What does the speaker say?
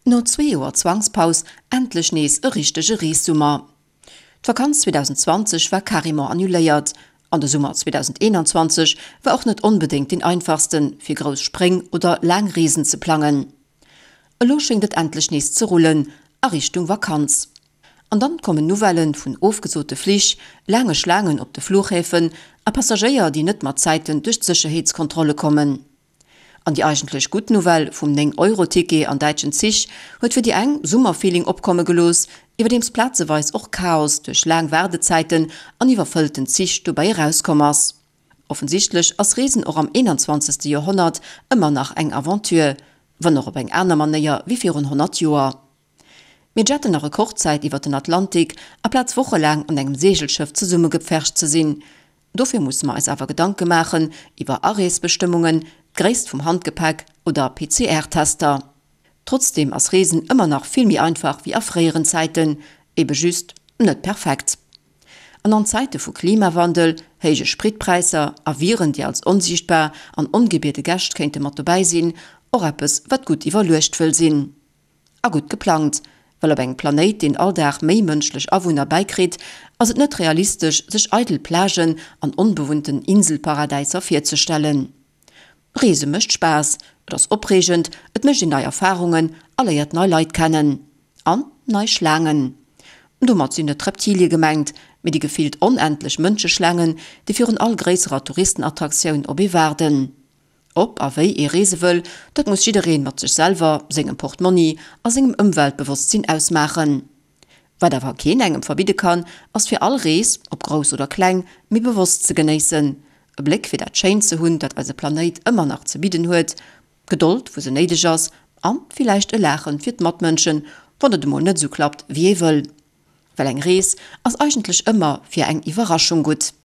No zwee Joer Zwangspaus endlech nees e richtege Reessummer. D'Vakanz 2020 war carrément annuléiert an de Summer 2021 war och net onbedéngt deen einfachsten, fir grouss Spréng oder laang Reesen ze plangen. Elo schéngt et endlech nees ze rullen a Richtung Vakanz. An dann kommen Nouvellen vun ofgesote Flich, laange Schlaangen op de Fluchhäfen a Passagéier, déi net mat Zäiten duerch d'Sécherheetskontrolle kommen. An déi eigentlech gutt Nouvelle vum 9 Euro Ticket an däitschen Zich huet fir déi eng Summerfeeling opkomme gelooss, iwwerdeems plazeweis och Chaos duerch laang Waardezäiten an iwwerfëllten Zich dobäi erauskomm ass. Offensichtlech ass Reesen och am 21. Joerhonnert ëmmer nach eng Aventure, wann och op eng aner Manéier wéi virun 100 Joer. Mir jetten a Rekordzäit iwwer den Atlantik, aplaz wochelaang an engem Seegelschëff zesummegepfercht ze sinn. Dofir musse mer eis awer Gedanke maachen iwwer Areesbestëmmungen, d'Gréisst vum Handgepäck oder PCR-Tester. Trotzdeem ass Reesen ëmmer nach vill méi einfach wéi a fréieren Zäiten, ebe just net perfekt. An an Zäite vu Klimawandel, héije Spritpräisser a Viren, déi als onsiichtbar an ongebiede Gäscht kéinte mat dobäi sinn, och eppes, wat gutt iwwerluecht wëll sinn. A gutt geplangt, well op engem Planéit, deen all Dag méi mënschlech Awunner bäikritt, ass et net realistesch, sech eidel Plagen an onbewunnten Inselparadäiser virzestellen. Reese mécht Spaass, et ass opreegend, et mécht een nei Erfarungen a léiert nei Leit kennen. An nei Schlaangen. Domat sinn net d'Reptilie gemengt, mee déi gefillt onendlech Mënscheschlaangen, déi virun all gréisserer Touristenattraktioun op ee waarden. Ob a wéi ee reese wëll, dat muss jiddereen mat sech selwer, sengem Portmonni a sengem Ëmweltbewosstsinn ausmaachen. Wat awer keen engem verbidde kann, ass fir all Rees, ob grouss oder kleng, méi bewosst ze genéissen, e Bléck fir dat Schéint ze hunn, dat eise Planéit ëmmer nach ze bidden huet, Gedold wou se néideg ass a villäicht e Laachen fir d'Matmënschen, wann et emol net esou klappt wéi ee wëll. Well eng Rees ass eigentlech ëmmer fir eng Iwwerraschung gutt.